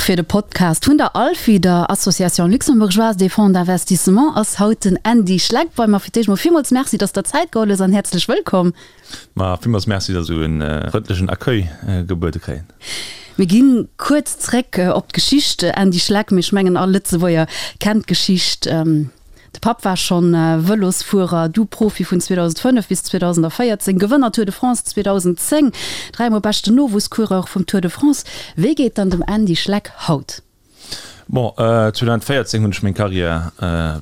fir de Podcast vun der ALFI, der Association Luxembourgeoise des Fonds d'Investissement, ass haut den Andy Schleck bei mer. Fir d'éischt mol villmools Merci, dass der Zäit geholl hues an häerzlech wëllkomm. Ma villmools Merci, dass ech esou e frëndlechen Accueil gebuede kréien. Mir ginn kuerz zréck op d'Geschicht, Andy Schleck, mee ech mengen all Lëtzebuerger kennt d'Geschicht. De Papp war schonn Vëlosfuerer, du Profi vun 2005 bis 2014, Gewënner Tour de France 2010, dräimol beschten Nowuesscoureur vum Tour de France. Wéi geet dann dem Andy Schleck haut? Bon, 2014 hunn ech meng Karriär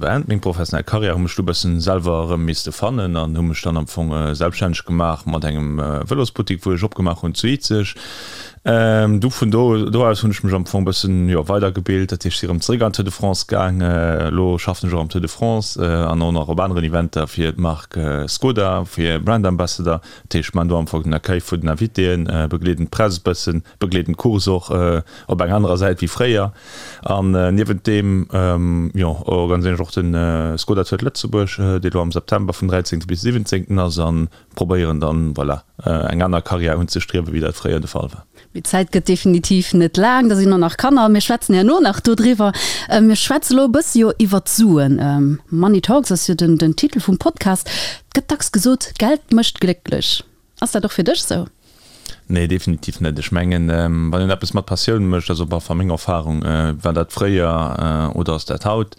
beend, meng professionell Karriär, hu mech du bëssen selwer erëm misste fannen an hu mech dann am Fong selbststänneg gemaach mat engem Vëlosbuttik, wou ech opgemaach hunn zu Izeg. Du vun do do aus hunn ech mech am Fong bëssen, jo, weidergebilt, dat heescht si erëm zeréck an d'Tour de France gaang. Elo schaffen ech och am Tour de France an och nach op aneren Eventer fir d'Mark Skoda, fir Brand Ambassador. Dat heescht, ech maachen do am Fong den Accueil vun den Invitéen, begleeden d'Press e bëssen, begleeden d'Course och op enger anerer Säit wéi fréier. An niewent deem, jo, organiséieren ech och de Skoda Tour de Lëtzebuerg, dee lo am September vum 13. bis 17. ass an probéieren dann, voilà, eng aner Karriär unzestriewen, wéi dat fréier de Fall war. Mee d'Zäit gëtt definitiv net laang, da sinn och nach Kanner. Mir schwätzen herno nach dodriwwer. Mir schwätze lo e bësse jo iwwer d'Suen. Money Talks ass jo den den Titel vum Podcast. Et gëtt dacks gesot, Geld mécht glécklech. Ass dat och fir dech sou? Nee, definitiv net. Ech mengen, wann een eppes mat Passioun mécht, also op alle Fall meng Erfahrung, war dat fréier oder ass dat haut,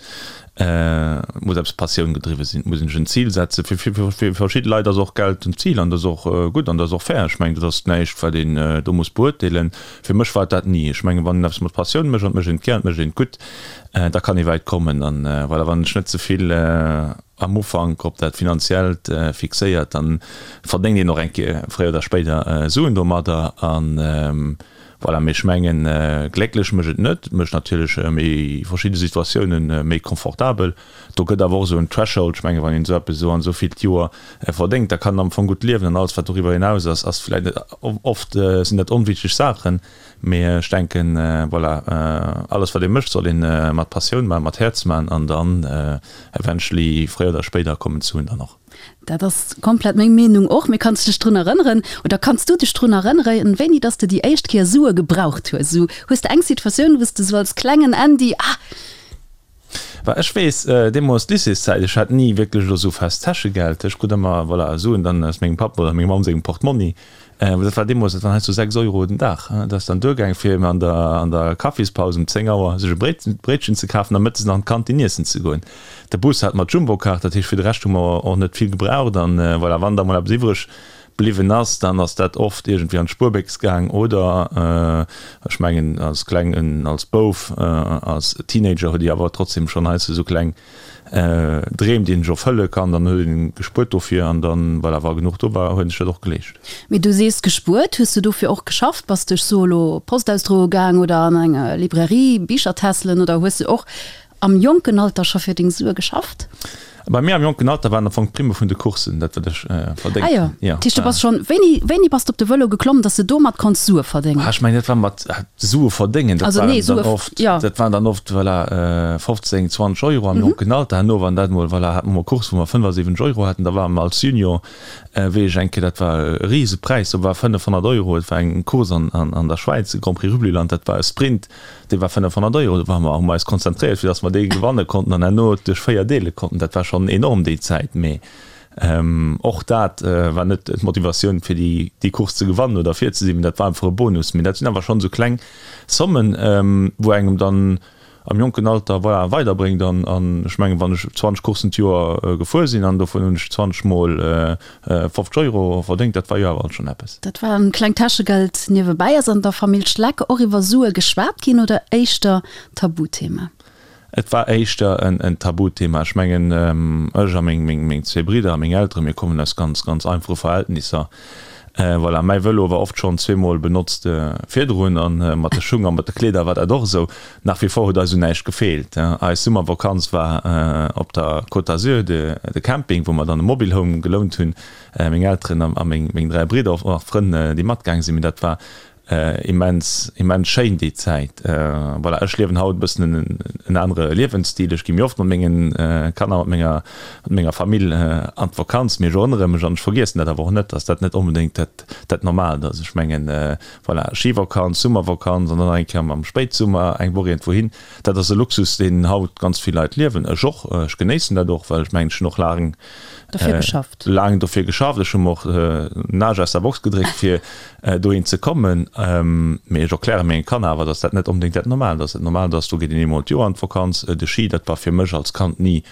muss eppes Passioun gedriwwe sinn, et muss een sech en Zil setzen. Fir fir verschidde Leit ass och Geld en Zil an dat ass och gutt an dat ass och fair. Ech mengen, dat ass näischt, wat een do muss beurteelen. Fir mech war et dat ni. Ech mengen, wann een eppes mat Passioun mécht an et mécht een et gär an et mécht een et gutt, da kann ee wäit kommen. An voilà, wann ech net ze vill am Ufank op dat Finanziellt fixéiert, dann verdéngt een och eng Kéier fréier oder spéider Suen domadder an voilà. Mee ech mengen, glécklech mécht et net, et mécht natierlech méi verschidde Situatiounen méi confortabel. Do gëtt awer och esou en Threshold, ech mengen, wann een esou eppes esou an esou vill d'Joer verdéngt, da kann een am Fong gutt liewen an alles wat doriwwer hinaus ass, ass vläicht net, oft sinn dat onwichteg Saachen. Mee ech denken, voilà, alles wat ee mécht, soll ee mat Passioun maachen, mat Häerz maachen an dann eventually fréier oder spéider kommen d'Suen dann och. Dat ass komplett meng Meenung och. Mee kanns de dech drun erënneren, oder kanns du dech drun erënneren, wéini dass de déi éischt Kéier Sue gebraucht hues? Esou, hues de eng Situatioun, wou s de esou als klengen Andy, ah, Well ech weess, deemools Lycéeszäit, ech hat ni wierklech elo esou fest Täschegeld. Ech krut ëmmer, voilà, Suen dann aus mengem Papp oder menger Mamm sengem Portmonni. Dat war deemools, dat waren heiansdo 6 Euro den Dag. Dat ass dann duergaang, fir an der, an der Kaffispaus um 10 Auer sech e Bréit, Bréitchen ze kafen a mëttes nach an d'Kantin iessen ze goen. De Bus hat mer d'Jumbokaart, dat heescht, fir de Rescht hu mer och net vill gebraucht. An, voilà, wann da mol eppes iwwreg bliwwen ass, dann ass dat oft iergendwéi an d'Spuerbéchs gaang oder, ech mengen, als Klengen, als Bouf, als Teenager huet Dir awer trotzdem schonn heiansdo esou kleng Dreem, déi een sech erfëlle kann. Dann huet een gespuert dofir an dann, voilà, wa genuch do war, huet een sech dat och geleescht. Mee du sees gespuert, hues du dofir och geschafft? Bass du, ech soe lo, Post ausdroe gaang oder an eng Librairie Bicher tässelen oder hues du och Am jonken Alter scho fir deng Sue geschafft? Bei mir am jonken Alter waren am Fong d'Primme vun de Coursen dat wat ech verdéngt Ah jo, hunn. dat heescht du bass schonn, wéini, wéini bass de op de Vëlo geklomm, dass de domat konns Sue verdéngen? Ah ech mengen dat war mat Sue verdéngen, dat Also nee, waren dann Sue, oft, jo. dat waren dann oft, voilà, 15, 20 Euro am jonken Alter. Herno wann dat mol, voilà, hate mer mol Course wou mer 75 Euro haten, da ware mer als Junior, wéi ech eng Kéier, dat war e Risepräis, do war 500 Euro, et war eng Course an, an, an der Schwäiz, de Grand Prix Rübliland, dat war e Sprint, Dee war 500 Euro, do ware mer, hu mer eis konzentréiert, fir datt mer dee gewanne konnten an herno duerch 4 deele konnten. Dat war schonn enorm déi Zäit, mee och dat war net d'Motivatioun, fir déi, déi Course ze gewannen oder vir ze sinn, mee dat war einfach e Bonus. Mee dat sinn awer schonn esou kleng Sommen, wou engem dann am jonken Alter, voilà, weiderbréngt. An, an ech mengen, wann ech 20 Courssen d'Joer gefuer sinn an dovun hunn ech 20 mol 50 Euro verdéngt, dat war jo awer alt schonn eppes. Dat war en klengt Täschegeld niewebäi. Ass an der Famill Schleck och iwwer Sue geschwat ginn oder éischter Tabuthema? Et war éischter en Tabuthema. Ech mengen, ech a meng zwee Bridder a meng Elteren, mir kommen aus ganz, ganz einfache Verhältnisser. Voilà, mäi Vëlo war oft schonn zweemol benotzt virdrun a mat de Schung a mat de Kleeder war dat och esou. Nach wie vor huet eis un näischt gefeelt. Eis Summervakanz war op der Côte d'Azur, de Camping, wou mer dann e Mobile Home gelount hunn, meng Elteren a meng 3 Bridder, och nach Frënn, déi matgaang sinn. Mee dat war. Immens, immens schéin déi Zäit. Voilà, ech liewen haut e bëssen en anere Liewensstil. Ech gi méi oft mat mengen Kanner, mat menger, mat menger Famill an d'Vakanz. Mee ech erënnere mech, an ech vergiessen dat awer och net, dass dat net onbedéngt dat, dat Normaalt ass. Ech mengen, voilà, Schivakanz, Summervakanz an dann nach eng Kéier am Spéitsummer eng Woch iergendwou hin, dat ass e Luxus, deen haut ganz vill Leit liewen. Ech och, ech genéissen dat och, well ech mengen, ech hunn och laang, Dofir geschafft. Laang dofir geschafft. Ech hu mer och den Aarsch aus der Box gedréckt, fir dohin ze kommen. Mee ech erkläre menge Kanner awer, datt dat net onbedéngt dat Normaalt ass. Dat Normaalt ass, do geet een eemol d'Joer an d'Vakanz. De Schi, dat war fir mech als Kand ni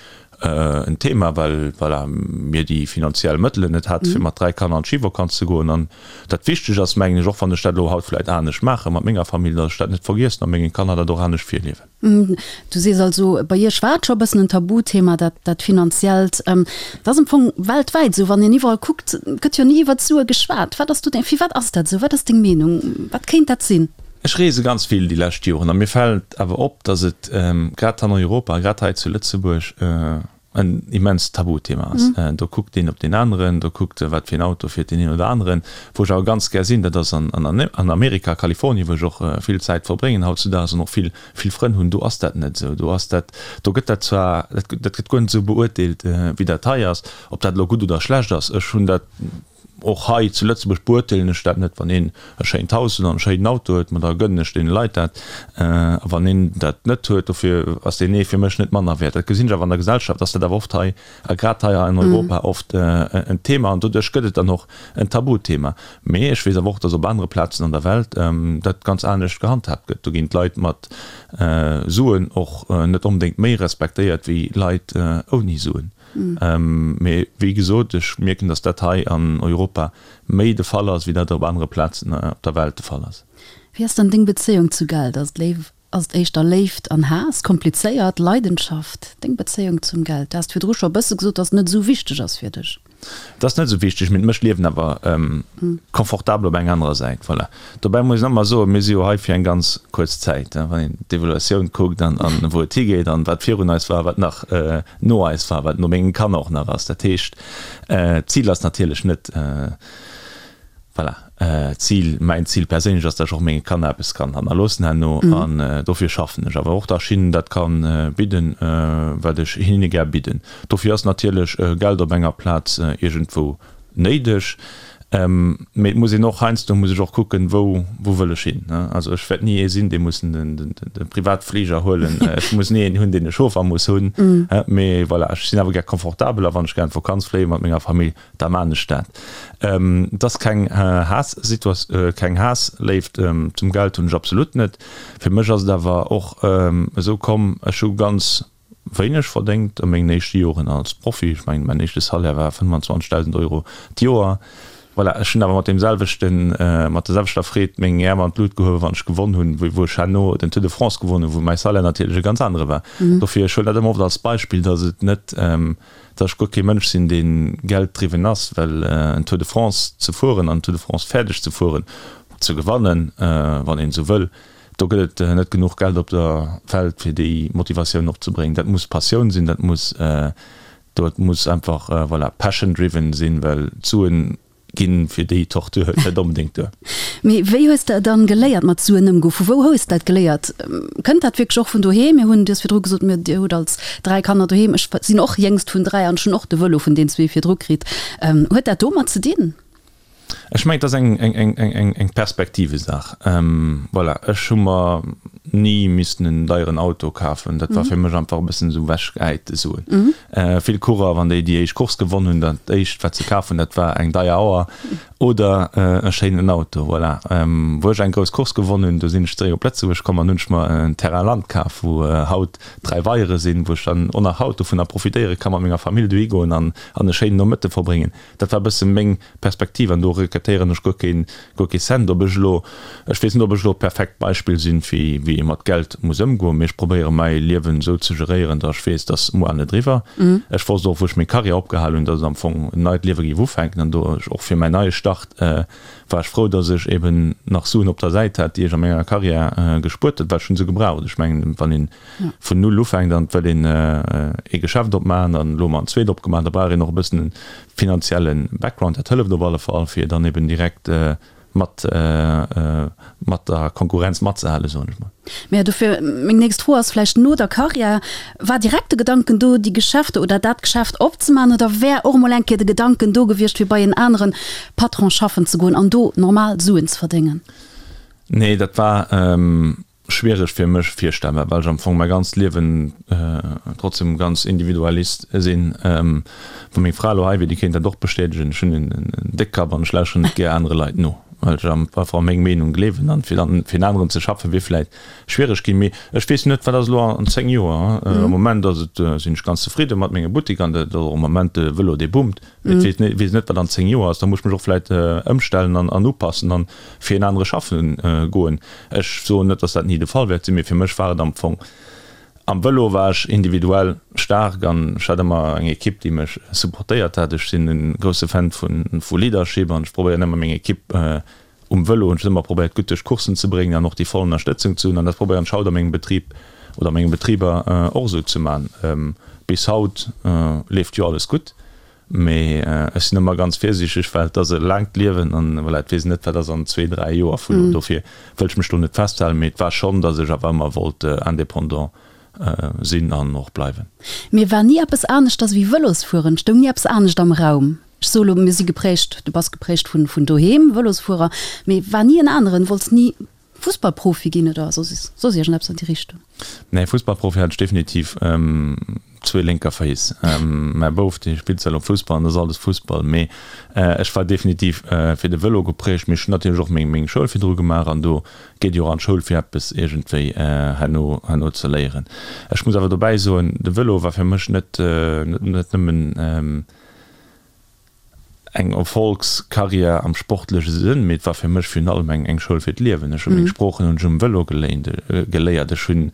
en Thema, well, voilà, mir déi finanziell Mëttelen net hate fir mat 3 Kanner an d'Schivakanz ze goen. An dat Wichteg ass, mengen ech, och wann ech dat elo haut vläicht anescht maache mat menger Famill, datt ech dat net vergiessen a menge Kanner dat och anescht virliewen. Du sees also, bei Iech war et scho e bëssen en Tabuthema, dat, dat Finanziellt. Dat ass am Fong weltwäit esou, wann een iwwerall kuckt, gëtt jo ni iwwert d'Sue geschwat. Wat ass do deng, firwat ass dat esou? Wat ass deng Meenung? Wat kéint dat sinn? Ech reese ganz vill déi lescht Joren a mir fält awer op, datt et grad an Europa, grad hei zu Lëtzebuerg, en immenst Tabuthema ass. Do kuckt een op deen aneren, do kuckt wat fir een Auto fiert deen een oder aneren. Wou ech awer ganz gär sinn, dat ass an Amerika, Kalifornien, wou ech och vill Zäit verbréngen hautzudaags an och vill, vill Frënn hunn. Do ass dat net esou. Do ass dat, do gëtt dat zwar, dat gëtt guer net esou beurteelt, wéi dat hei ass. Ob dat elo gutt oder schlecht ass, ech hunn dat Och hei zu Lëtzebuerg beurteelen ech dat net. Wann een e schéint Haus huet an e schéinen Auto huet, ma da gënnen ech deene Leit dat. A wann een dat net huet, dofir ass deen ee fir mech net manner wäert. Dat gesinn ech awer an der Gesellschaft, ass dat awer oft hei, a grad hei an Europa oft en Thema. An doduerch gëtt et dann och en Tabuthema. Mee ech weess awer och, datt op anere Plazen an der Welt dat ganz anescht gehandhaabt gëtt. Do ginn d'Leit mat Suen och net onbedéngt méi respektéiert wéi Leit ouni Suen. Mee wéi gesot, ech mierken, datt dat hei an Europa méi de Fall ass, wéi dat op anere Plazen op der Welt de Fall ass. Wéi ass dann deng Bezéiung zu Geld? Ass et Léif, ass et éischter Léift an Haass, komplizéiert, Leidenschaft? Deng Bezéiung zum Geld? Du has virdru scho e bësse gesot, datt et net esou wichteg ass fir dech. Et ass net esou wichteg, mee et mécht d'Liewen awer confortabel op eng anerer Säit. Voilà. Dobäi muss een ëmmer soen, mir si jo hei fir eng ganz kuerz Zäit. Wann een d'Evaluatioun kuckt an wou et higeet an wat virun eis war, wat nach no eis war, wat no mengen Kanner och nach ass. Dat heescht, d'Zil ass natierlech net, voilà, D'Zil, mäin Zil perséinlech ass, datt ech och menge Kanner eppes kann hannerloossen herno an dofir schaffen ech awer och, datt ech hinnen dat kann bidden, wat ech hinne gär bidden. Dofir ass natierlech Geld op enger Plaz iergendwou néideg, mee et muss een och, heiansdo muss ech och kucken, wou, wou wëll ech hin. Also ech wäert ni ee sinn, dee muss de Privatfliger huelen, ech muss ni een hunn, deen e Chauffer muss hunn, mee voilà, ech sinn awer gär confortabel a wann ech gär an d'Vakanz fléie mat menger Famill, Da maan ech dat. Et ass keng Haass-Situatioun, keng Haass-Léift zum Geld hunn ech absolut net. Fir mech ass et awer och esou komm, ech hu ganz wéineg verdéngt a mengen éischte Joren als Profi. Ech mengen, mäin éischte Salaire war 25.000 Euro d'Joer. Voilà, ech hunn awer mat deem selwechten, mat der selwechter Freed meng Äerm an d'Lut gehuewen, wann ech gewonn hunn, wéi wou ech herno den Tour de France gewonn hunn, wou mäi Salaire natierlech e ganz anere war. Dofir, ech huelen dat ëmmer oft als Beispill, datt et net, Datt ech guer kee Mënsch sinn, dee gelddriwwen ass, well en Tour de France ze fueren an en Tour de France fäerdeg ze fueren, ze gewannen, wann een esou wëll, do gëtt et net genuch Geld op der Welt, fir déi Motivatioun opzebréngen. Dat muss Passioun sinn, dat muss, dat muss einfach, voilà, passion driven sinn, well d'Suen Ginn fir déi Tortur net onbedéngt duer. Mee wéi hues de dann geléiert mat Suen ëmgoen? Vu wou hues de dat geléiert? Kënnt dat wierklech och vun doheem? Mir hunn, du hues virdru gesot, mir, dir hutt als 3 Kanner doheem. Ech sinn och jéngst vun 3 an ech hunn och de Vëlo vun den zwee virdru kritt. Huet dat domat ze dinn? Ech mengen, et ass eng, eng, eng, eng Perspektivesaach. Voilà, ech hu mer ni missten en deieren Auto kafen. Dat war fir mech einfach e bëssen esou ewechgehäite Suen. Vill Coureur, wann déi déi éischt Course gewonn hunn, dat éischt wat se kaf hunn, dat war eng deier Auer oder e schéinen Auto. Voilà. Wou ech eng grouss Course gewonn hunn, do sinn ech zeréck op Lëtzebuerg komm an hunn ech mer en Terrain Land kaf, wou haut 3 Weiere sinn, wou ech dann och nach haut dovunner profitéiere ka mat menger Famill dohi goen an e schéinen Nomëtte verbréngen. Dat war e bësse meng Perspektiv an do regrettéieren ech guer keen, guer kee Cent. Ob ech elo, ech weess net, ob ech elo d'perfekt Beispill sinn, fir wéi ee mat Geld muss ëmgoen, mee ech probéiere mäi Liewen esou ze geréieren, datt ech weess, dass muer net eriwwer. Ech wosst och, wou ech meng Karriär opgehal hunn, datt et am Fong en neit Liewe géif ufänken an do ech och fir mäin neie Start war ech frou, datt ech eben nach Suen op der Säit hat, déi ech a menger Karriär gespuert huet, well ech hunn se gebraucht. Ech mengen, wann een vun Null ufänkt an et wëll een ee Geschäft opmaachen, an elo hu mer en zweet opgemaach, da brauch een och e bëssen e finanzielle Background. Dat hëlleft op alle Fall, fir dann eben direkt. mat mat der Konkurrenz matzehalen, soen ech mol. Mä dofir meng nächst Fro ass vläicht, no der Karriär, war direkt de Gedanken do, déi Geschäfte oder dat Geschäft opzemaachen oder wär och emol eng Kéier de Gedanken do gewiescht, fir bei en anere Patron schaffen ze goen an do normal Suen ze verdéngen? Nee, dat war schwiereg fir mech virstellbar, well ech am Fong mäi ganzt Liewen trotzdem ganz Individualist sinn. Wa meng Fra elo hei wier, déi kéint dat och bestätegen, ech hunn en Déckkapp an ech lauschteren net gär anere Leit no, well ech einfach a meng Meenung gleewen an fir dann fir en aneren ze schaffen, wier vläit schwiereg ginn. Mee ech weess net, wat ass elo an 10 Joer. Am Moment ass et, sinn ech ganz zefridde mat mengem Buttek an dat ass och am Moment de Vëlo, dee boomt. Mee ech weess net, wat an 10 Joer ass. Da muss ech mech och vläit ëmstellen an upassen an fir en anere schaffen goen. Ech soen net, dass dat ni de Fall wäert sinn, mee fir mech war et am Fong, am Vëlo war ech individuell staark an ech hat ëmmer eng Ekipp, déi mech supportéiert hat. Ech sinn e grousse Fan vu Leadership an ech probéieren ëmmer meng Ekipp um Vëlo hunn ech ëmmer probéiert gutt duerch d'Courssen ze bréngen an och déi voll Ënnerstëtzung ze hunn an dat probéieren ech haut a mengem Betrib oder a menge Betriber och esou ze man. Bis haut leeft jo alles gutt. Mee ech sinn ëmmer ganz virsiichteg, well et ass e laangt Liewen an voilà, et weess een net, wat ass an zwee, dräi Joer vun elo. Dofir wëll ech mech do net festhalen, mee et war schonn, datt ech awer ëmmer wollt indépendant sinn an och bleiwen. Mee war ni eppes aneschters ewéi Vëlosfueren? Stoung ni eppes anescht am Raum? Ech soe lo, mir si geprägt, du bass geprägt vun doheem, Vëlosfuerer, mee war ni en aneren? Wollts ni Fussballprofi ginn oder soss soss iergendeppes an déi Richtung? Nee, Fussballprofi hat ech definitiv zwee lénker Féiss. Mäi Bouf, dee spillt zwar elo Fussball an dat ass alles Fussball, mee ech war definitiv fir de Vëlo geprägt. Mee ech hunn natierlech och meng meng Schoul virdru gemaach an do geet jo och an d'Schoul fir eppes iergendwéi herno herno ze léieren. Ech muss awer dobäi soen, de Vëlo war fir mech net net nëmmen eng Erfolgskarriär am sportleche Sënn, mee et war fir mech virun allem eng eng Schoul fir d'Liewen. Ech hu meng Sproochen hunn ech um Vëlo geléint geléiert, ech hunn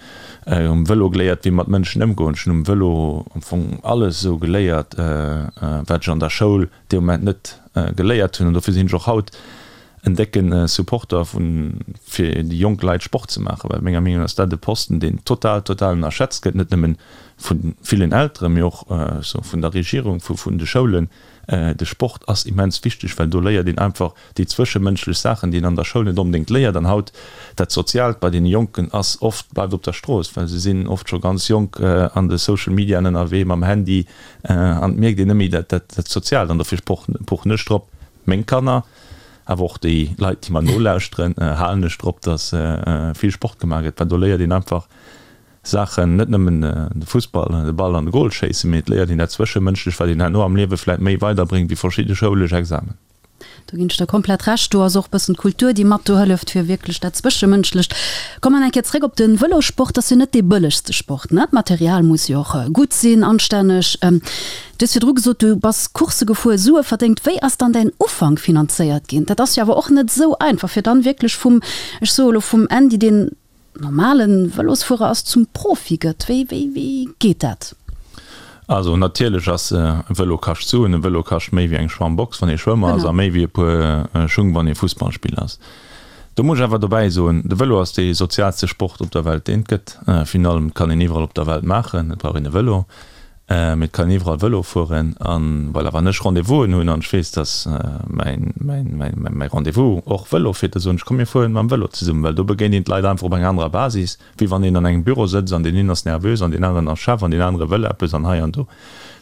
um Vëlo geléiert wéi mat Mënschen ëmgoen, ech hunn um Vëlo am Fong alles esou geléiert, wat ech an der Schoul dee Moment net geléiert hunn. An dofir sinn ech och haut en décke Supporter vun fir déi jonk Leit Sport ze maachen, well menger Meenung no ass dat e Posten deen total total ënnerschätzt gëtt, net nëmmen vu villen Elteren, mee och vun der Regierung, vun de Schoulen. De Sport ass immens wichteg, well do léiert een einfach déi zwëschemënschlech Saachen, déi een an der Schoul net onbedéngt léiert. An haut, dat Soziaalt bei deene Jonken ass oft, bleift op der Strooss, well se sinn oft scho ganz jonk an de Social Mediaen ënnerwee mam Handy an et mierkt een net méi dat Soziaalt. An dofir pochen ech drop, meng Kanner, awer och déi Leit, déi mer nolauschteren, halen ech drop, datt vill Sport gemaach gëtt, well do léiert een einfach Saachen, net nëmmen de Fussball, de Ball an de Goal schéissen, mee et léiert een dat Zwëschemënschlecht, wat een herno am Liewe vläit méi weiderbréngt wéi verschidde schoulesch Examen. Do ginn ech der komplett Recht. Do ass och e bëssen d'Kultur, déi mat do hëlleft, fir wierklech dat Zwëschemënschlecht. Kommen eng Kéier zréck op de Vëlossport. Dat ass jo net dee bëllegste Sport, ne? D'Material muss jo och gutt sinn, anstänneg. Du hues virdru gesot, du bass Coursse gefuer, Sue verdéngt. Wéi ass dann däin Ufank finanzéiert ginn? Dat ass jo awer och net esou einfach, fir dann wierklech vum, ech soe elo vum Andy, deen normalen Vëlosfuerer ass, zum Profi gëtt? Wéi, wéi, wéi geet dat? Also natierlech ass e Vëlo kascht Suen. E Vëlo kascht méi wéi eng Schwammbox wann ee Schwëmmer ass a méi wéi e puer Schung wann ee Fussballspiller ass. Do muss ech awer dobäi soen, de Vëlo ass dee soziaalste Sport op der Welt deen et gëtt. Virun allem et kann een iwwerall op der Welt maachen, et brauch een e Vëlo. Mee et kann een iwwerall Vëlo fueren. An voilà, wann ech Rendez-vousen hunn an ech weess, dass mäin, mäin, mäin, mäi Rendez-vous och Vëlo fiert, da soen ech, komm mir fueren mam Vëlo zesummen, well do begéint een d'Leit einfach op enger anerer Basis, wéi wann een an engem Büro sëtzt an deen een ass nervös an deen aneren ass Chef an deen anere wëll eppes an hei an do.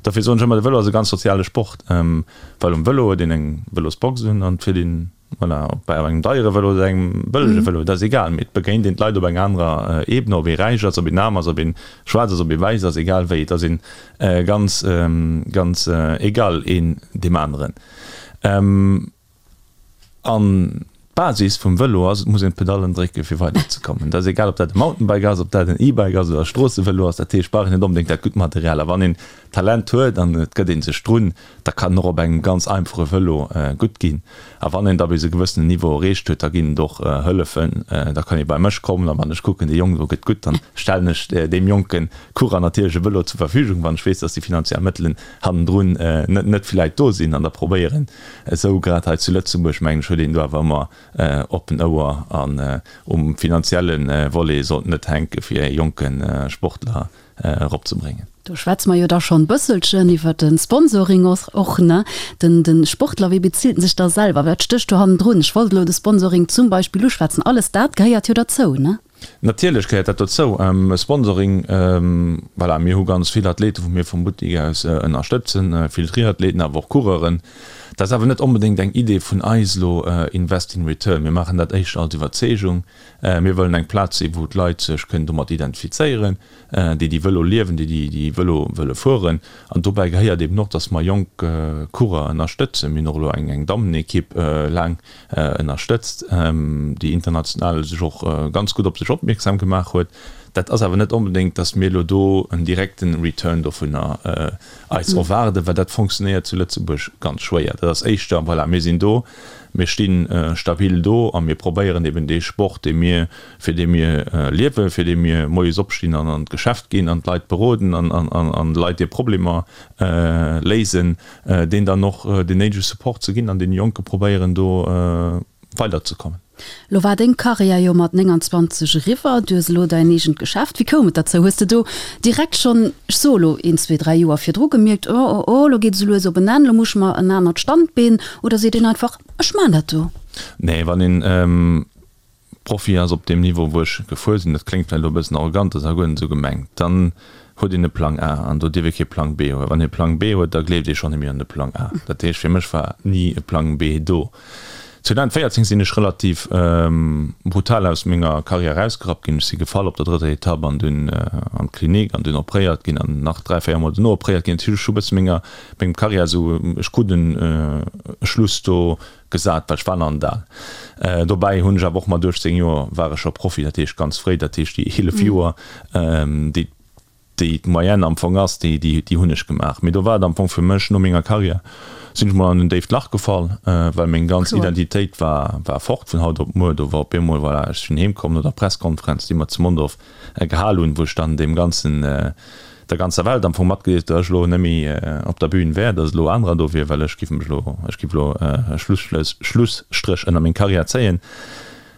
Dofir soen ech ëmmer, de Vëlo ass e ganz soziale Sport, well um Vëlo huet een eng Vëlosbox un an et fiert een Voilà, ob bei engem deiere Vëlo oder engem bëllege Vëlo, dat ass egal, mee et begéint een d'Leit op enger anerer Ebene, ob ee räich ass, ob een aarm ass, ob een schwaarz ass, ob ee wäiss ass, egal wéi, et ass een ganz, ganz egal een deem aneren. An d'Basis vum Vëlo ass, et muss een d'Pedallen drécke fir weiderzekommen. Dat ass egal, ob dat e Mountainbike ass, ob dat en E-Bike ass oder e Stroossevëlo ass, dat heescht, brauch een net onbedéngt dat gutt Material. A wann een Talent huet an et gëtt ee sech drun, da kann en och op engem ganz einfache Vëlo gutt ginn. A wann een da bis e gewëssenen Niveau erreecht huet, da ginn et och Hëllefen, da kann ee bei mech kommen a wann ech kucken, dee Jong do gëtt gutt, dann stellen ech deem jonke Coureur natierlech e Vëlo zur Verfügung, wann ech weess, dass déi finanziell Mëttelen hannendrun net net vläit do sinn. An da probéieren esou, grad hei zu Lëtzebuerg, mengen ech, huet een do awer ëmmer oppen Ouer an um finanzielle Volet sollt net hänke fir e jonke Sportler eropzebréngen. Do schwätze mer jo da schonn bësselchen iwwer de Sponsoring och, ne? Den, de Sportler, wéi bezilt en sech da selwer? Wat stécht do hannendrun? Ech wollt elo de Sponsoring zum Beispill uschwätzen. Alles dat gehéiert jo derzou, ne? Natierlech gehéiert dat dozou. Sponsoring, voilà, mir hu ganz vill Athleten, wou mir vum Buttik aus ënnerstëtzen, vill Triathleten, awer och Coureuren. Dat ass awer net onbedéngt eng Idee vun eis elo, Invest in Return. Mir maachen dat éischter als Iwwerzeegung. Mir wëllen eng Plaz sinn, wou d'Leit sech kënnen domat identifizéieren. déi déi Vëlo liewen, déi déi Vëlo wëlle fueren. An dobäi gehéiert eben och, dass mer jonk Coureur ënnerstëtzen. Mir hunn och elo eng eng Dammenekipp laang ënnerstëtzt, déi international sech och ganz gutt op sech opmierksam gemaach huet. Dat ass awer net onbedéngt, dass mir elo do en direkten Return dovunner eis erwaarden, well dat fonctionnéiert zu Lëtzebuerg ganz schwéier. Dat ass éischter, voilà, mir sinn do, mir sti stabil do a mir probéieren eben dee Sport, dee mir fir dee mir liewen, fir dee mir moies opstinn an an d'Geschäft ginn an d'Leit beroden an Leit hir Problemer léisen, deen dann och deen néidege Support ze ginn an deene Jonke probéieren do weiderzekommen. Lo war deng Karriär jo mat 29 eriwwer, du hues elo däin eegent Geschäft. Wéi koum et derzou? Hues de do direkt schonn, ech soe lo een, zwee, dräi Joer virdru gemierkt, oh, oh, oh, lo geet et esou lues op en Enn, lo muss ech mer en anert Standbeen, oder seet een einfach, ech maan dat do? Nee, wann een Profi ass op deem Niveau wou ech gefuer sinn, dat kléngt vläicht elo e bëssen arrogant, ass awer guer net esou gemengt, dann huet een e Plang A an do dierf ee kee Plang B hunn. Wann ee Plang B huet, da gleeft ee schonn net méi un de Plang A. Dat heescht, fir mech war ni e Plang B do. 2014 sinn ech relativ brutal aus menger Karriär erausgerappt ginn. Ech si gefall op der drëtter Etapp an dunn an d'Klinik an dunn opréiert ginn an nach 3, 4 Mol dono opréiert ginn. Dat heescht, ech hu bësse menger, mengem Karriär esou, ech krut en Schluss do Gesat, well ech war nach net al. Dobäi hunn ech awer och mat 18 Joer war ech scho Profi, dat heescht ganz fréi, dat heescht déi 11 Joer, déi déi d'Moyenne am Fong ass, déi déi hunn ech gemaach. Mee do war et am Fong fir mech, no menger Karriär sinn ech mol an en déift Lach gefall, well meng ganz Identitéit war war fort vun haut op muer. Do war op eemol, voilà, ech sinn heem komm no der Presskonferenz, déi mer zu Mondorf gehal hunn, wou ech dann deem ganzen, der ganzer Welt am Fong matgedeelt, datt ech elo net méi op der Bühn wär, datt elo anerer do wier, well ech giff mech elo, ech giff elo e Schlusstréch ënner meng Karriär zéien.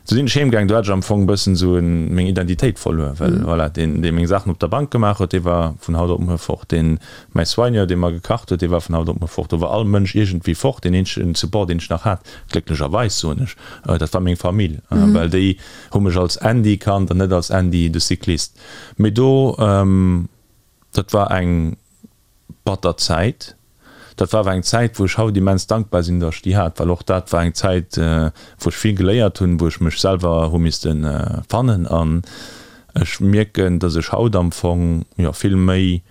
Du sinn ech heem gaang, do hat ech am Fong e bëssen esou meng Identitéit verluer, well voilà, deen, dee meng Saachen op der Bank gemaach huet, dee war vun haut op muer fort, deen, mäi Soigneur, dee mer gekacht huet, dee war vun haut op muer fort, do war all Mënsch iergendwéi fort. Deen eenzegen Support, deen ech nach hat, glécklecherweis soen ech, dat war meng Famill, well déi hu mech als Andy kannt an net als Andy de Cycliste. Mee do, dat war eng batter Zäit. Dat war awer eng Zäit, wou ech haut immens dankbar sinn, datt ech déi hat, well och dat war eng Zäit, wou ech vill geléiert hunn, wou ech mech selwer hu misste fannen. An ech mierken, datt ech haut am Fong, jo, vill méi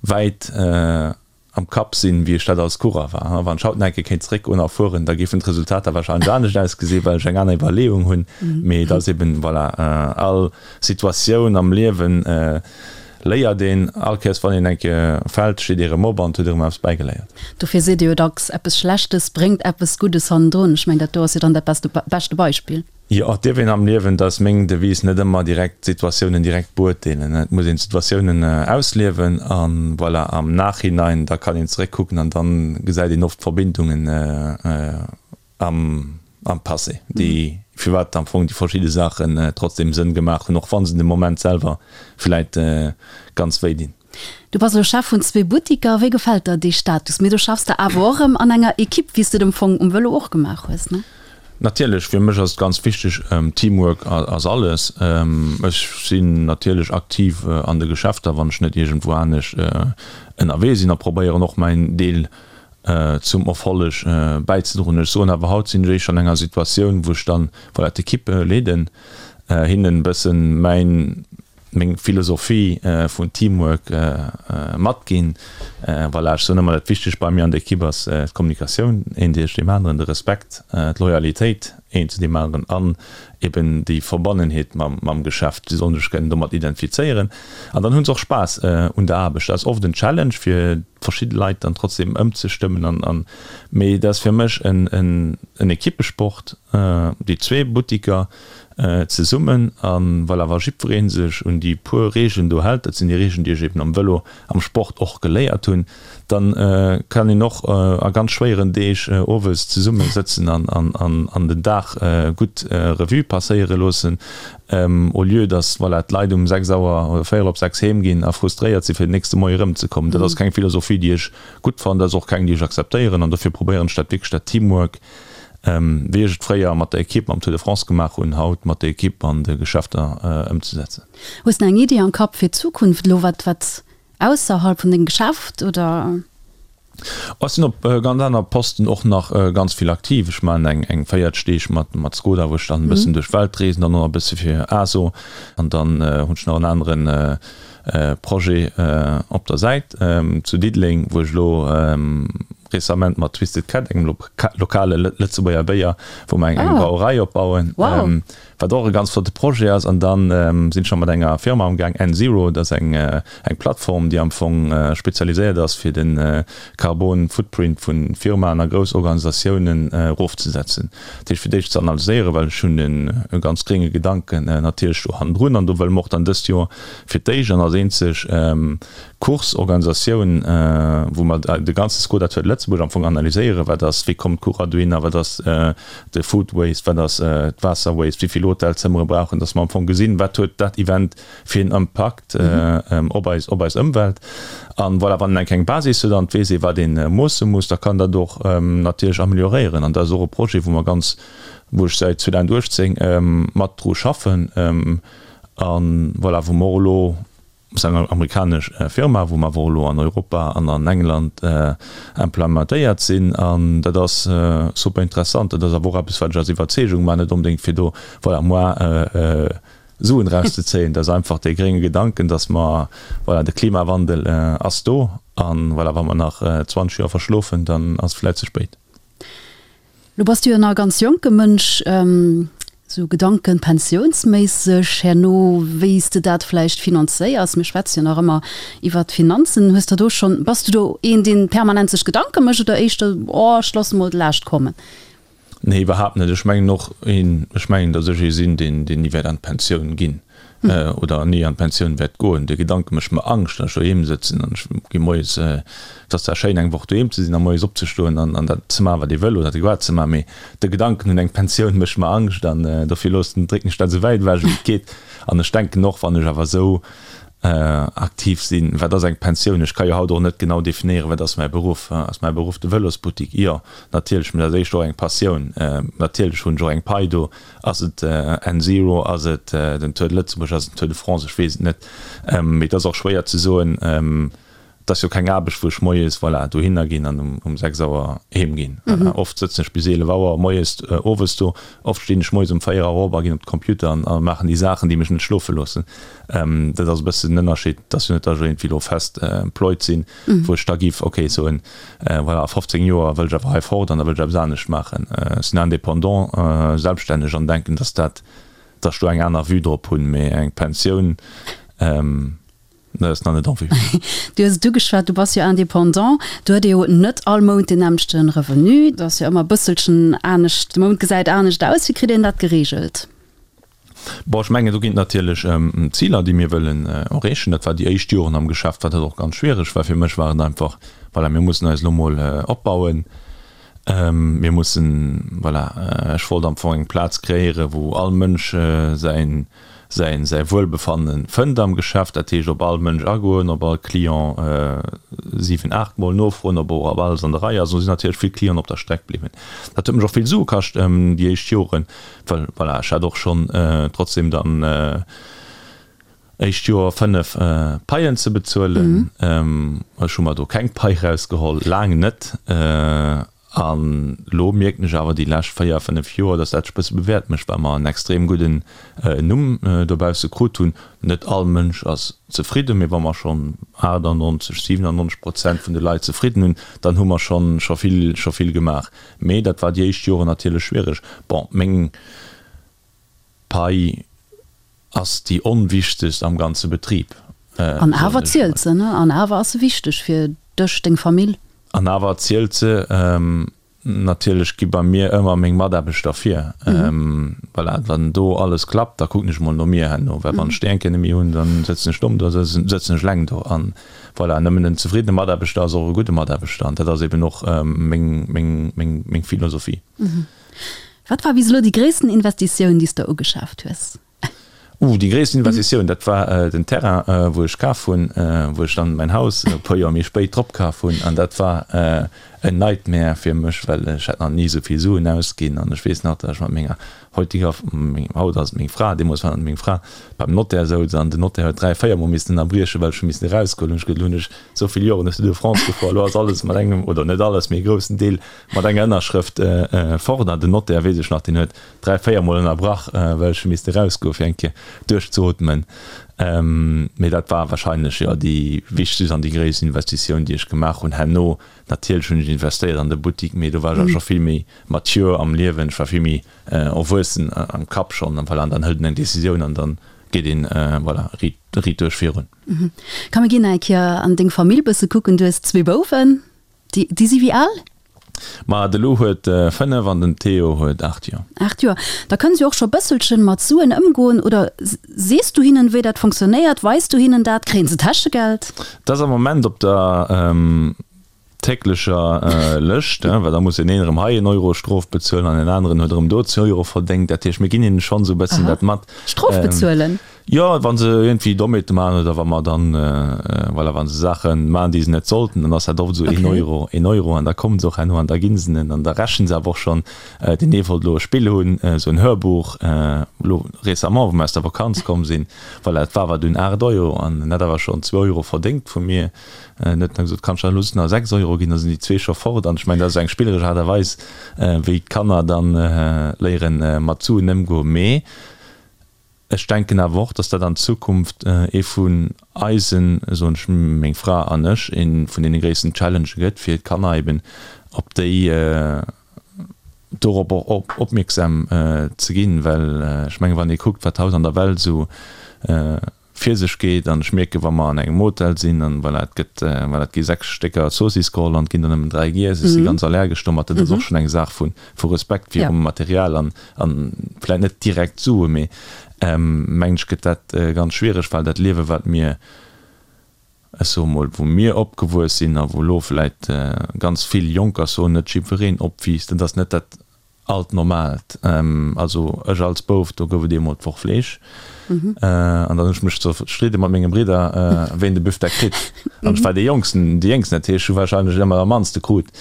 wäit am Kapp sinn, wéi ech dat als Coureur war. Wann ech haut nach eng Kéier kéint zeréckgoen a fueren, da géifen d'Resultater warscheinlech anescht ausgesinn, well ech eng aner Iwwerleeung hunn. Mee et ass eben, voilà, all Situatioun am Liewen léiert een. All Kéiers wann een eng Kéier fält, steet ee rëm op an huet erëm eppes bäigeléiert. Dofir seet ee jo dacks, Eppes Schlechtes bréngt eppes Guddes hannendrun. Ech mengen, dat do ass jo dann dat beschte Beispill. Jo, et dierf een am Liewen, dat ass meng Devise, net ëmmer direkt d'Situatiounen direkt beurteelen. Et muss een d'Situatiounen ausliewen a voilà, am Nachhinein, da kann een zeréckkucken an dann gesäit een oft d'Verbindungen am am Passé, déi, firwat am Fong déi verschidde Saachen trotzdem Sënn gemaach hunn, och wa se de Moment selwer vläit ganz wéi dinn. Du bass elo Chef vun zwee Buttiker. Wéi gefält der dee Status? Mee do schaffs de awer och erëm an enger Ekipp, wéi s de et am Fong um Vëlo och gemaach hues, ne? Natierlech, fir mech ass et ganz wichteg, Teamwork ass alles. Ech sinn natierlech aktiv an de Geschäfter, wann ech net iergendwou anescht ënnerwee sinn a probéieren och mäin Deel zum Erfolleg bäizedroen. Ech soen awer, haut sinn ech éischter an enger Situatioun, wou ech dann, voilà, d'Ekipp leeden, hinnen e bëssen mäin, meng Philosophie vun Teamwork matginn. Voilà, ech soen ëmmer, dat Wichtegst bei mir an der Ekipp ass d'Kommunikatioun, een duerch deem aneren, de Respekt, d'Loyalitéit een zu deem aneren an eben déi Verbonnenheet mam Geschäft. Si sollen sech kënnen domat identifizéieren an dann hu se och Spaass un der Aarbecht. Dat ass oft en Challenge fir verschidde Leit dann trotzdem ëmzestëmmen an, mee dat ass fir mech en Ekippesport, déi zwee Buttiker. zesummen. A voilà, wa jiddweree sech un déi puer Reegelen do hält, dat sinn déi Reegelen, déi ech eben am Vëlo, am Sport och geléiert hunn, dann kann een och a ganz schwéieren Deeg owes zesumme sëtzen an den Dag gutt Revue passéiere loossen, au lieu dass, voilà, d'Leit um 6 Auer oder véierel op 6 heem ginn a frustréiert si fir den nächste Moie erëmzekommen. Dat ass keng Philosophie, déi ech gutt fannen, dat ass och keng, déi ech akzeptéieren an dofir probéieren ech dat wierklech, dat Teamwork, wéi ech et fréier mat der Equipe am Tour de France gemaach hunn, haut mat der Equipe an de Geschäfter ëmzesetzen. Hues de eng Iddi am Kapp fir d'Zukunft elo, wat wat ausserhalb vun dengem Geschäft oder? Ech sinn op ganz aner Posten och nach ganz vill aktiv. Ech maachen eng eng 40 Deeg mat mat Skoda, wou ech dann e bëssen duerch d'Welt reesen, dann och nach e bësse fir ASO an dann hunn ech nach en aneren Projet op der Säit zu Diddeleng, wou ech elo récemment mat Twisted Cat, engem lokale Lëtzebuerger Béier, wou mer eng Brauerei opbauen, wat och e ganz flotte Projet ass. An dann sinn ech nach mat enger Firma amgaang, N-Zero, dat ass eng Plattform, déi am Fong spezialiséiert ass, fir de Carbon Footprint vu Firmaen a grouss Organisatiounen erofzesetzen. Dat heescht fir d'éischt ze analyséieren, well ech hunn e ganz grénge Gedanken natierlech do hannendrun an do wëlle mer och dann dëst Joer fir d'éischt an als eenzeg Course-Organisatioun, wou mer de ganze Skoda Tour de Lëtzebuerg am Fong analyséieren, wat ass, wéi kommen d'Coureur dohinner, wat ass de Food Waste, wat ass d'Waasser Waste, wéi vill Hotelzëmmere brauchen, datt mer am Fong gesinn, wat huet dat Event fir en Impakt op eis, op eis Ëmwelt. An voilà, wann een eng kleng Basis huet an et weess ee wat ee moosse muss, da kann dat och natierlech amelioréieren. An dat ass och e Projet, wou mer ganz, wou ech säit 2018 mat dru schaffen a voilà, wou mer och elo, ass eng amerikanesch Firma, wou mer awer och elo an Europa an an England implementéiert sinn. An dat ass super interessant. Dat ass awer och eppes, wat ech aus Iwwerzeegung maachen, net onbedéngt fir do, voilà, moi Suen erauszezéien. Dat ass einfach dee grénge Gedanken, dass mer, voilà, de Klimawandel ass do an, voilà, wa mer nach 20 Joer verschlofen, dann ass et vläicht ze spéit. Lo bass du jo nach e ganz jonke Mënsch. Sou Gedanken pensiounsméisseg herno, wéi s de dat vläicht finanzéiers, mir schwätze jo nach ëmmer iwwert d'Finanzen, hues der do schonn, bass du do een, deen permanent sech Gedanke mécht oder éischter, oh ech loosse mol d'Laascht kommen? Nee, iwwerhaapt net. Ech mengen och een, ech mengen, datt ech ee sinn, deen, deen ni wäert an d'Pensioun ginn oder ni an d'Pensioun wäert goen. De Gedanke mécht mer Angscht, datt ech doheem sëtzen an ech gi moies, et ass zwar schéin eng Woch doheem ze sinn a moies opzestoen an an dat ze maachen, wat ee wëll oder adequat ze maachen, mee de Gedanken un eng Pensioun mécht mer Angscht an dofir loossen, drécken ech dat esou wäit ewech wéi et geet. An ech denken och, wann ech awer esou aktiv sinn, wat ass eng Pensioun? Ech ka jo haut och net genau definéieren, wat ass mäi Beruff? Ass mäi Beruff de Vëlosbuttik? Jo, natierlech, mee dat ass éischter och eng Passioun. Natierlech hunn ech och eng Pai do. Ass et N-Zero, ass et den Tour de Lëtzebuerg, ass et den Tour de France, ech weess et net. Mee et ass och schwéier ze soen, et ass jo keng Aarbecht, wou ech moies, voilà, dohinner ginn an um 6 Auer heem ginn. Oft sëtzen ech bis 11 Auer moies, owes do. Oft stinn ech moies um 4 Auer op a ginn op de Computer an maachen déi Saachen, déi mech net schlofe loossen. Dat ass e bëssen den Ënnerscheed. Et ass jo net, datt ech iergendwéi elo fest employed sinn, wou ech da giff, ok, soen, Voilà, a 15 Joer wëll ech awer hei fort an da wëll ech eppes anescht maachen. Ech sinn indépendant, selbststänneg an denken, dass dat, dass ech do eng aner Vue drop hunn. Mee eng Pensioun, dat ass nach net en vue. Du hues et ugeschwat, du bass jo indépendant. Do huet ee jo net all Mount deen nämmlechte Revenu. Dat ass jo ëmmer e bësselchen anescht, de Mount gesäit anescht aus. Wéi kritt een dat gereegelt? Bon, ech mengen, do ginn et natierlech Ziler, déi mir wëllen erreechen. Dat war déi éischt Joren am Geschäft, war dat och ganz schwiereg, well fir mech war et einfach, voilà, mir mussen eis elo mol opbauen, mir mussen, voilà, ech wollt am Fong eng Plaz kreéieren, wou all Mënsch säin, säin, säi Wuelbefanne fënnt am Geschäft. Dat heescht, op all Mënsch agoen, op all Client siwen, aachtmol nofroen, ob och ob alles an der Rei ass. Do sinn natierlech vill Clienten op der Streck bliwwen. Dat huet mech och vill Sue kascht déi éischt Joren. Well voilà, ech hat och schonn trotzdem dann éischt Joer 5 Paien ze bezuelen. Ech hu mer do keng Pai rausgeholl, laang net. An elo mierken ech awer déi lescht 4, 5 Joer, datt dat sech e bësse bewäert mécht, well mer en extrem gudden Numm dobausse krut hunn. Net all Mënsch ass zefridden, mee wa mer schonn 98, 97 Prozent vun de Leit zefridden hunn, dann hu mer schonn scho vill, scho vill gemaach. Mee dat war déi éischt Joren natierlech schwiereg. Bon, meng Pai ass déi onwichtegst am ganze Betrib. An awer zielt se, ne? An awer ass se wichteg fir dech, deng Famill. An awer zielt se. Natierlech gi bei mir ëmmer meng Mataarbechter vir. Voilà, wann do alles klappt, da kucken ech mol no mir herno, well wann ech déi eng Kéier net méi hunn, da sëtzen ech domm do, da sëtzen ech eleng do. An voilà, nëmmen en zefriddene Mataarbechter ass och e gudde Mataarbechter an dat ass eben och meng, meng, meng, meng Philosophie. Wat war bis elo déi gréissten Investitioun, déi s de ugeschaaft hues? Uh, déi gréissten Investitioun, dat war den Terrain, wou ech kaf hunn, wou ech dann mäin Haus e puer Joer méi spéit drop kaf hunn. An dat war en Nightmare fir mech, well ech hat nach ni esou vill Suen ausginn. An ech weess nach, datt ech mat menger heutiger, haut ass et meng Fra, deemools war et meng Fra, beim Notaire souz an den Notaire huet 3, 4 Mol missen ënnerbriechen, well ech hu missen erausgoen. Hunn ech gesot, elo hunn ech esou vill Joren ech Tour de France gefuer, elo ass alles mat engem, oder net alles, mee e groussen Deel mat enger Ënnerschrëft fort. An den Notaire, weess ech nach, deen huet 3, 4 mol ënnerbrach, well ech hu misste erausgoen, fir eng Kéier duerchzeootmen. Mee dat war wahrscheinlech, jo, déi wichtegst an déi gréisst Investitioun, déi ech gemaach hunn. Herno, natierlech hunn ech investéiert an de Buttik, mee do war ech awer scho vill méi mature am Liewen, ech war vill méi erwuessen am Kapp schonn. An voilà, an dann hëlt een eng Decisioun an dann geet een, voilà, riit, riit duerch virun. Komm, mir ginn nach eng Kéier an deng Famill bësse kucken. Du hues zwee Bouwen. Déi, déi si wéi al? Ma de Lou huet 5 an den Theo huet 8 Joer. 8 Joer. Da kënnen se jo och scho bësselchen mat Suen ëmgoen. Oder sees du hinnen, wéi dat fonctionnéiert? Weis du hinnen dat? Kréien se Täschegeld? Dat ass am Moment op der täglecher Lëscht, well da muss deen een erëm hei en Euro Strof bezuelen an deen aneren huet erëm do zwee Euro verdéngt. Dat heescht, mir ginn hinnen schonn esou e bëssen dat mat. Strof bezuelen? Jo, wa se iergendwéi Dommheete maachen oder wa mer dann, voilà, wa se Saache maachen, déi se net sollten, dann ass dat oft esou een Euro, een Euro an da kommen se och herno an da gi se en an da rechnen se awer och schonn. Deen ee wollt elo e Spill hunn, esou en Hörbuch, elo récemment, wou mer aus der Vakanz komm sinn, voilà, et war awer dunn 8 Euro an en hat awer schonn zwou Euro verdéngt vu mir. En huet dann gesot, Kanns du dann elo just nach 6 Euro ginn, da sinn déi zwee scho fort. An ech mengen, dat ass esou eng spilleresch Aart a Weis, wéi d'Kanner dann léieren, mat Suen ëmgoen. Mee Ech denken awer och, dass dat an Zukunft ee vun eisen, soen ech, meng Fra an ech, ee vun deene gréissten Challengë gëtt, fir d'Kanner eben op déi, dorop och opmierksam ze ginn. Well ech mengen, wann ee kuckt, wat haut an der Welt esou fir sech geet, an ech mierken, wa mer an engem Hotel sinn, an voilà, et gëtt, voilà, et gi 6 Stécker Zoossiss geholl an et ginn der nëmmen 3 giess, ech si ganz allergesch domat, dat ass och schonn eng Saach vu vu Respekt virum Material an an vläit net direkt Sue, mee mengen ech gëtt dat ganz schwiereg, well dat Liewe wat mir, ech soe mol, wou mir opgewuess sinn a wou elo vläit ganz vill Jonker, ech soen net jiddwereen, opwiisst, dat ass net dat alt Normaalt. Also ech als Bouf, do gouf et eemol d'Woch Fleesch. An dann hunn ech mech zerstridde mat menge Bridder, ween de Büfdeck kritt. An ech war dee Jongsten, déi Jéngsten, dat heescht, ech hu warscheinlech ëmmer am mannste krut.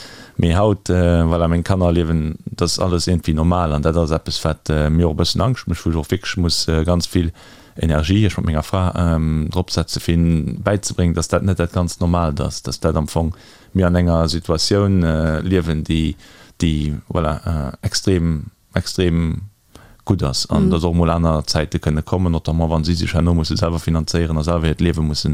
Mee haut, voilà, meng Kanner liewen, dat ass alles iergendwéi normal. An dat ass eppes, wat mir och e bëssen Angscht mécht, wou ech och wierklech muss ganz vill Energie, ech mat menger Fra, drop setze fir hinnen bäizebréngen, dass dat net dat ganz Normaalt ass, dass dat am Fong mir an enger Situatioun liewen, déi, déi, voilà, extrem, extrem gutt ass an dass och emol aner Zäite kënne kommen, notamment wa si sech herno musse selwer finanzéieren a selwer hiert Liewe musse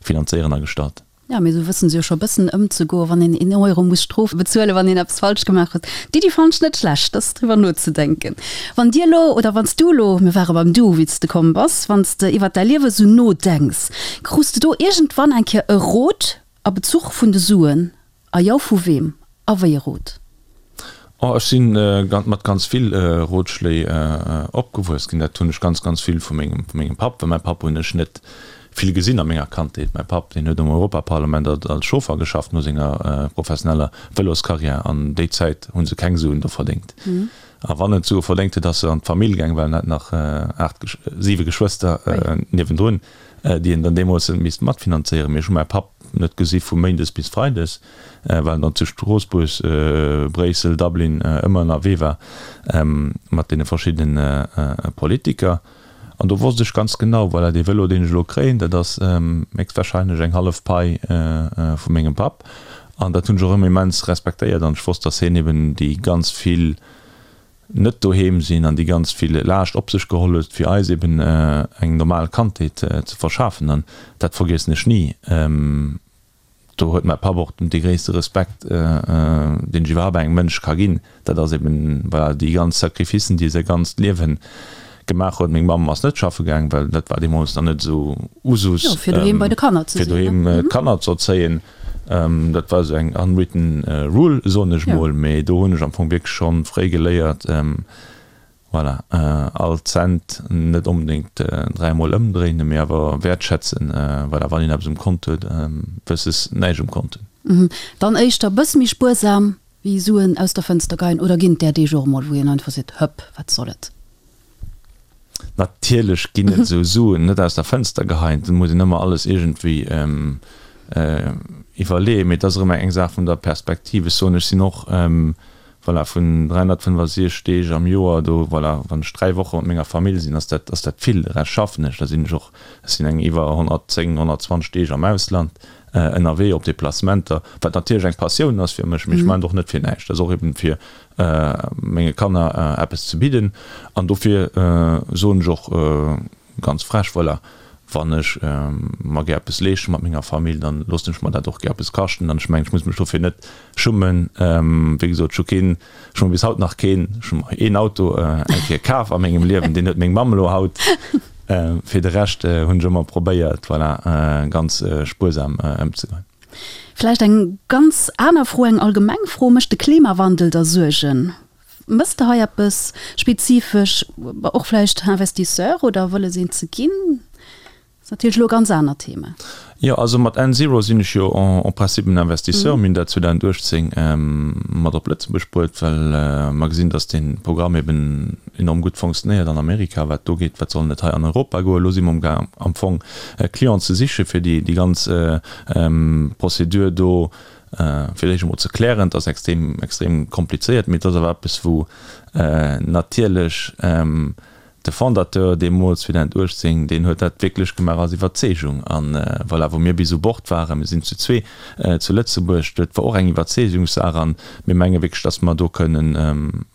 finanzéieren a gestalten. Jo, mee esou wëssen se jo scho bëssen ëmzegoen, wann een een Euro muss Strof bezuelen, wann een eppes falsch gemaach huet. D'Iddi fannen ech net schlecht, dass driwwer nozedenken. Wann Dir elo, oder wann s du elo, mir ware beim Du, wéi s de komm bass, wann s de iwwert däi Liewe sou nodenks, krus de do iergendwann eng Kéier e Rot a Bezuch vun de Suen? A jo, vu weem a wéi e Rot? Oh, ech si mat ganz vill Rotschléi opgewuess ginn. Dat hunn ech ganz, ganz vill vu mengem, vu mengem Papp, well mäi Papp hunn ech net vill gesinn a menger Kandheet. Mäi Papp, deen huet am Europaparlament als Chauffer geschafft no senger professioneller Vëloscarrière an déi Zäit hu se keng Suen do verdéngt. A wann en d'Sue verdéngt huet, ass e an d'Famill gaang, well en hat nach aacht, siwe Geschwëster niewendrun, déi en dann deemools huet misste matfinanzéieren. Mee ech hu mäi Papp net gesi vu méindes bis freides, well en dann zu Stroossbuerg, Bréissel, Dublin ëmmer ënnerwee war mat deene verschiddene Politiker. An do wosst ech ganz genau, voilà, dee Vëlo, deen ech elo kréien, dat ass héchstwahrscheinlech eng hallef Pai vu mengem Papp. An dat hunn ech och ëmmer immens respektéiert an ech wosst, datt hien eben déi ganz vill net doheem sinn an déi ganz vill Laascht op sech geholl huet, fir eis eben eng normal Kandheet ze verschafen. An dat vergiessen ech ni. Do huet mäi Papp och dee gréisste Respekt, deen ech iwwerhaapt engem Mënsch ka ginn. Dat ass eben, voilà, déi ganz Sacrificen, déi e säi ganzt Liewe gemaach huet. Meng Mamm ass net schaffe gaang, well dat war deemools nach net esou Usus, fir doheem bei de Kanner ze sinn, fir doheem d'Kanner ze erzéien. Dat war esou eng unwritten rule, soen ech mol, mee do hunn ech am Fong wierklech schonn fréi geléiert, voilà, all Cent net onbedéngt dräimol ëmdréinen, mee awer wäertschätzen, voilà, wann een eppes um Kont huet, versus näischt um Kont hunn. Dann éischter e bësse méi spuersam wéi Suen aus der Fënster geien, oder ginn et där Deeg och emol, wou een einfach seet, hëpp, wat soll et? Natierlech ginn et esou Suen net aus der Fënster geheien, et muss een ëmmer alles iergendwéi iwwerleeën, mee et ass erëm eng Saach vun der Perspektiv. Ech soen, ech sinn och, voilà, vun 365 Deeg am Joer do, voilà, wann ech 3 Woche mat menger Famill sinn, ass dat, ass dat vill. De Rescht schaffen ech, da sinn ech och, ech sinn eng iwwer 110, 120 Deeg am Ausland ënnerwee op Deplacementer, wat natierlech eng Passioun ass fir mech, mee ech maachen et och net fir näischt, dat ass och eben fir menge Kanner eppes ze bidden an dofir soen ech och ganz frech, voilà, wann ech mer gär eppes leeschte mat menger Famill, dann loossen ech mer dat och gär eppes kaschten an ech mengen, ech muss mech dofir net schummen. Wéi gesot, ech hu keen, ech hu mer bis haut nach keen, ech hu mer een Auto eng Kéier kaf a mengem Liewen, deen huet meng Mamm elo haut. Fir de Rescht hunn ech ëmmer probéiert, voilà, ganz spuersam ëmzegoen. Vläicht eng ganz aner Fro, eng allgemeng Fro, Mécht de Klimawandel der Suergen? Mëss de hei eppes spezifesch, och vläicht Investisseur oder wëlles een ze ginn? Dat ass natierlech elo e ganz anert Thema. Jo, also mat nZero sinn ech jo en principe en Investisseur. Mir hunn dat 2018 mat op Lëtzebuerg bruet, well mer gesinn, datt dee Programm eben enorm gutt fonctionnéiert an Amerika. Wat do geet, wat soll net hei an Europa goen? Elo si mer amgaang am Fong Clienten ze siche fir déi ganz Procédure do fir d'éischt emol ze klären. Et ass extrem, extrem komplizéiert, mee et ass awer eppes wou natierlech de Fondateur deemools 2018, deen huet dat wierklech gemaach aus Iwwerzeegung. An voilà, wou mir bis u Bord waren, mir sinn zu zwee zu Lëtzebuerg, dat war och eng Iwwerzeegungssaach an mir menge wierklech, datt mer do kënnen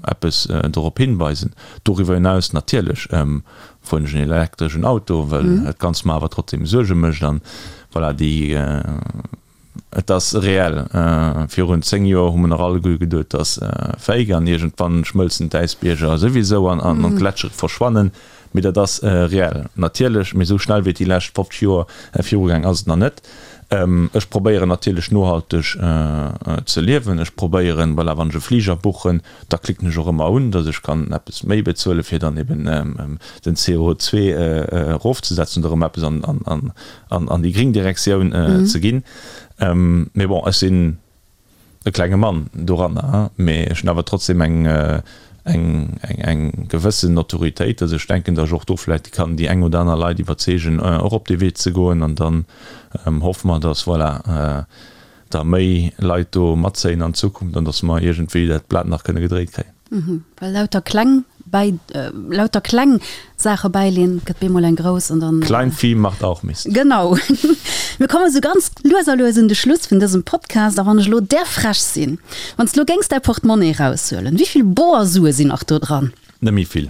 eppes dorop hinweisen. Doriwwer hinaus natierlech fueren ech en elektreschen Auto, well dat Ganzt mer awer trotzdem Suerge mécht an voilà, déi Et ass reell. Virun 10 Joer hu mer nach alleguer geduet, et ass fake an iergendwann schmëlzen d'Äisbierger souwisou an d'Gletschere verschwannen. Mee dat ass reell natierlech. Mee esou schnell wéi et déi lescht 50 Joer virugaang ass et nach net. Ech probéieren natierlech nohalteg ze liewen. Ech probéieren, voilà, wann ech e Fliger buchen, da klicken ech och ëmmer un, datt ech kann eppes méi bezuelen, fir dann eben den CO2 erofzesetzen oder erëm eppes an an déi gréng Direktioun ze ginn. Mee bon, ech sinn e klenge Mann doranner, mee ech hunn awer trotzdem eng, eng, eng gewëssen Notoriétéit, dass ech denken, dass ech och do vläicht kann déi eng oder aner Leit iwwerzeegen, och op dee Wee ze goen. An dann hoffe mer, dass, voilà, da méi Leit do matzéien an Zukunft an dass mer iergendwéi dat Blat nach kënne gedréit kréien. Well lauter kleng bäi, lauter kleng Saache bäileen, gëtt bemol eng grouss an dann. Kleinvieh macht auch Mist. Genau. Mir komme sou ganz lues a lues un de Schluss vun dësem Podcast. A wann ech elo där frech sinn, wann s de elo géings däi Portemonnaie eraushuelen, wéi vill boer Sue sinn nach do dran? Net méi vill.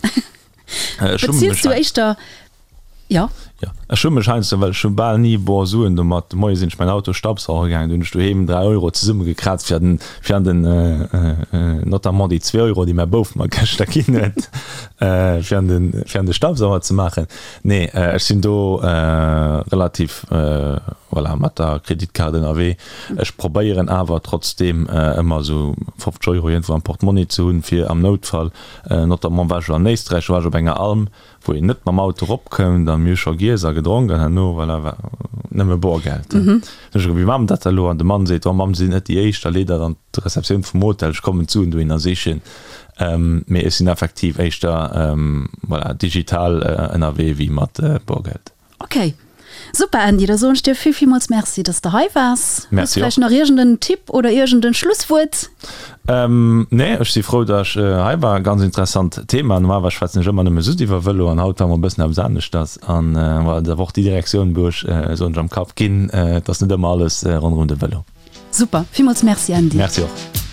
Beziels du éischter, jo? Jo, ech hu mech heiansdo, well ech hu bal ni boer Suen domat, de Moie sinn ech mäin Auto staubsauge gaangen, do hunn ech doheem 3 Euro zesummegekraazt fir an den, fir an den, notamment déi zwee Euro, déi mäi Bouf mer gëschter ginn huet, fir an den, fir an de Staubsauger ze maachen. Nee, ech sinn do relativ, voilà, mat der Kreditkaart ënnerwee. Ech probéieren awer trotzdeem ëmmer esou 50 Euro iergendwou am Portmonni ze hunn, fir am Noutfall Notamment war ech an Éisträich, do war ech op enger Alm, wou een net mam Auto eropkoum, dann mir hu scho giess a gedronk an herno, voilà, war nëmme Borgeld. Dann hu ech gesot, wéi maache mer dat da elo? An de Mann seet, oh Mamm, si sinn net déi éischt, da leet dat an d'Receptioun vum Hotel, ech kommen d'Suen dohinner sichen. Mee ech sinn effektiv éischter, voilà, digital ënnerwee wéi mat Borgeld. Ok, super Andy, da soen ech dir vill villmools Merci, dass de hei waars. Hues de vläicht nach iergend en Tipp oder iergend en Schlusswuert? Nee, ech si frou, dass ech hei war. Ganz interessant Thema. Normalerweis schwätzen ech ëmmer nëmme just iwwer Vëlo an haut war mol e bëssen eppes aneschters. An voilà, et ass awer och déi Direktioun, wou ech, soen ech, am Kapp ginn. Et ass net ëmmer alles ronderëm de Vëlo. Super, villmools Merci Andy. Merci och.